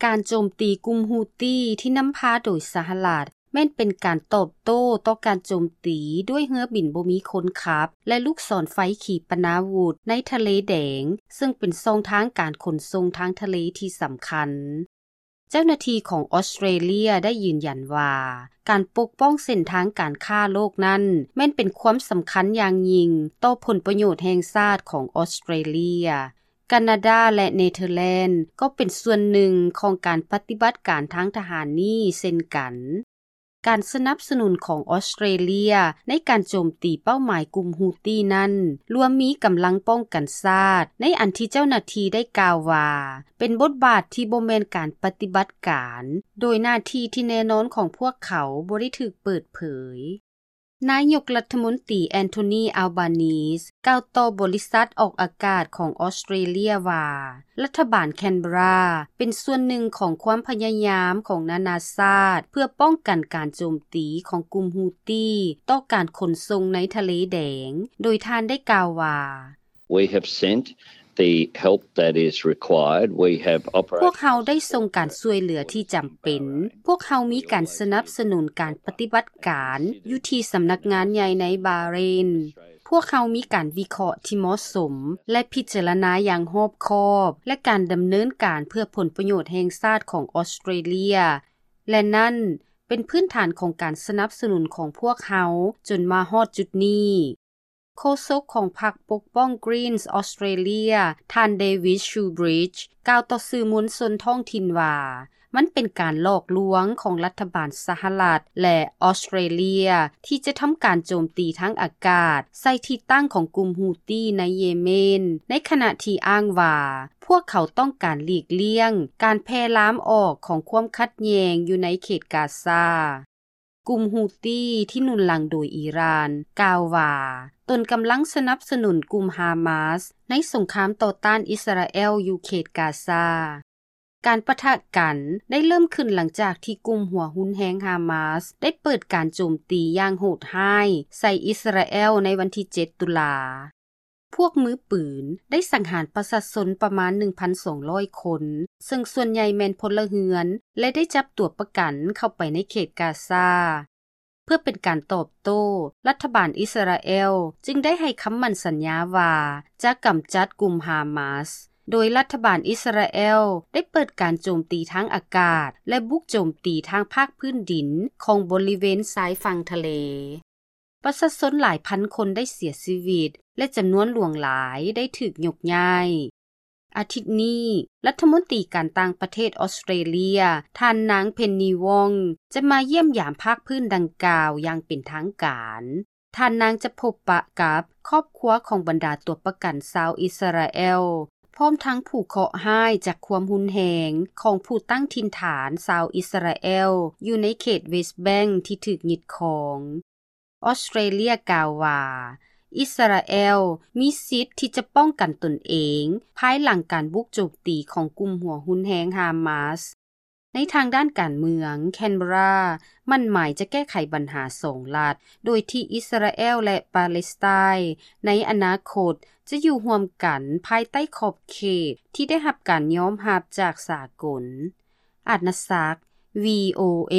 ການໂຈມຕີກຸ່ມຮູ້ຕີທີ່ນຳພາໂດຍສະຫະລັດ ແມ່ນເປັນການຕອບໂຕ້ຕໍ່ການໂຈມຕີດ້ວຍເຮືອບິນບໍ່ມີຄົນຂັບ ແລະ ລູກສອນໄຟຂີປະນາວຸດໃນທະເລແດງ, ເຊິ່ງເປັນຊ່ອງທາງການຂົນສົ່ງທາງທະເລທີ່ສຳຄັນ. ເຈົ້າໜ້າທີ່ຂອງອອສເຕຣເລຍໄດ້ຢືນຢັນວ່າ ການປົກປ້ອງເສັ້ນທາງການຄ້າໂລກນັ້ນ ແມ່ນເປັນຄວາມສຳຄັນຢ່າງຍິ່ງຕໍ່ຜົນປະໂຫຍດແຫ່ງຊາດຂອງອອສເຕຣເລຍ. ການາດາ ແລະ ເນເທີແລນ ກໍເປັນສ່ວນໜຶ່ງຂອງການປະຕິບັດການທາງທະຫານນີ້ເຊັ່ນກັນ. ການສະໜັບສະໜູນຂອງອອສເຕຣເລຍໃນການໂຈມຕີເປົ້າໝາຍກຸ່ມຮູ້ຕີນັ້ນ ລວມມີກຳລັງປ້ອງກັນຊາດ, ໃນອັນທີ່ເຈົ້າໜ້າທີ່ໄດ້ກ່າວວ່າ ເປັນບົດບາດທີ່ບໍ່ແມ່ນການປະຕິບັດການ, ໂດຍໜ້າທີ່ທີ່ແນ່ນອນຂອງພວກເຂົາບໍ່ໄດ້ຖືກເປີດເຜີຍ. ນາຍົກລັດຖະມົນຕີ ແອນໂທນີ ອາລບານີສ ກ່າວຕໍ່ບໍລິສັດອອກອາກາດຂອງອອສເຕຣເລຍວ່າ ລັດຖະບານແຄນເບຣາເປັນສ່ວນໜຶ່ງຂອງຄວາມພະຍາຍາມຂອງນານາຊາດ ເພື່ອປ້ອງກັນການໂຈມຕີຂອງກຸ່ມຮູ້ຕີຕໍ່ການຂົນສົ່ງໃນທະເລແດງ, ໂດຍທ່ານໄດ້ກ່າວວ່າ We have sent the help that is required. We have operational support. ພວກເຮົາໄດ້ສົ່ງການຊ່ວຍເຫຼືອທີ່ຈຳເປັນ. ພວກເຮົາມີການສະໜັບສະໜູນການປະຕິບັດການຢູ່ທີ່ສຳນັກງານໃຫຍ່ໃນບາເຣນ. ພວກເຮົາມີການວິເຄາະທີ່ເໝາະສົມ ແລະ ພິຈາລະນາຢ່າງຮອບຄອບ ແລະ ການດຳເນີນການເພື່ອຜົນປະໂຫຍດແຫ່ງຊາດຂອງອອສເຕຣເລຍ ແລະ ນັ້ນເປັນພື້ນຖານຂອງການສະໜັບສະໜູນຂອງພວກເຮົາຈົນມາຮອດຈຸດນີ້. ໂຄສົກຂອງພັກປົກປ້ອງ Greens Australia ທ່ານ David Shoebridge ກ່າວຕໍ່ສື່ມວນຊົນທ້ອງຖິ່ນວ່າ ມັນເປັນການຫຼອກລວງຂອງລັດຖະບານສະຫະລັດ ແລະ ອອສເຕຣເລຍ ທີ່ຈະທຳການໂຈມຕີທາງອາກາດໃສ່ທີ່ຕັ້ງຂອງກຸ່ມຮູ້ຕີໃນເຢເມນ, ໃນຂະນະທີ່ອ້າງວ່າ ພວກເຂົາຕ້ອງການຫຼີກລ່ຽງການແຜ່ລາມອອກຂອງຄວາມຂັດແຍ່ງຢູ່ໃນເຂດກາຊາ. ກຸ່ມຮູ້ຕີທີ່ໜູນຫຼັງໂດຍອີຣານ ກ່າວວ່າ ຕົນກຳລັງສະໜັບສະໜູນກຸ່ມຮາມາສໃນສົງຄາມຕໍ່ຕ້ານອິສຣາແອລຢູ່ເຂດກາຊາ. ການປະທະກັນໄດ້ເລີ່ມຂຶ້ນຫຼັງຈາກທີ່ກຸ່ມຫົວຮຸນແຮງຮາມາສໄດ້ເປີດການໂຈມຕີຢ່າງໂຫດຮ້າຍໃສ່ອິສຣາແອລໃນວັນທີເຈັດ ຕຸລາ. ພວກມືປືນໄດ້ສັງຫານປະຊາຊົນປະມານ ໜຶ່ງພັນສອງຮ້ອຍ ຄົນ, ເຊິ່ງສ່ວນໃຫຍ່ແມ່ນພົນລະເຮືອນ ແລະ ໄດ້ຈັບຕົວປະກັນເຂົ້າໄປໃນເຂດກາຊາ. ເພື່ອເປັນການຕອບໂຕ້, ລັດຖະບານອິສຣາແອລຈຶ່ງໄດ້ໃຫ້ຄຳໝັ້ນສັນຍາວ່າຈະກຳຈັດກຸ່ມຮາມາສ, ໂດຍລັດຖະບານອິສຣາແອລໄດ້ເປີດການໂຈມຕີທາງອາກາດ ແລະ ບຸກໂຈມຕີທາງພາກພື້ນດິນຂອງບໍລິເວນຊາຍຝັ່ງທະເລ. ປະຊາຊົນຫຼາຍພັນຄົນໄດ້ເສຍຊີວິດ ແລະ ຈຳນວນຫຼວງຫຼາຍໄດ້ຖືກຍົກຍ້າຍ. ອາທິດນີ້, ລັດຖະມົນຕີການຕ່າງປະເທດອອສເຕຣເລຍ ທ່ານນາງ ເພັນນີ ວອງ ຈະມາຢ້ຽມຢາມພາກພື້ນດັ່ງກ່າວຢ່າງເປັນທາງການ. ທ່ານນາງຈະພົບປະກັບຄອບຄົວຂອງບັນດາຕົວປະກັນຊາວອິສຣາແອລ, ພ້ອມທັງຜູ້ເຄາະຮ້າຍຈາກຄວາມຮຸນແຮງຂອງຜູ້ຕັ້ງຖິ່ນຖານຊາວອິສຣາແອລຢູ່ໃນເຂດເວສແບັງທີ່ຖືກຍຶດຄອງ. ອອສເຕຣເລຍກ່າວວ່າ ອິສຣາແອລມີສິດທີ່ຈະປ້ອງກັນຕົນເອງພາຍຫຼັງການບຸກໂຈມຕີຂອງກຸ່ມຫົວຮຸນແຮງຮາມາສ. ໃນທາງດ້ານການເມືອງ, ແຄນເບຣາໝັ້ນໝາຍຈະແກ້ໄຂບັນຫາສອງລັດ, ໂດຍທີ່ອິສຣາແອລ ແລະ ປາເລສໄຕນໃນອະນາຄົດຈະຢູ່ຮ່ວມກັນພາຍໃຕ້ຂອບເຂດທີ່ໄດ້ຮັບການຍອມຮັບຈາກສາກົນ. ອາດນະສັກ, ວີໂອເອ.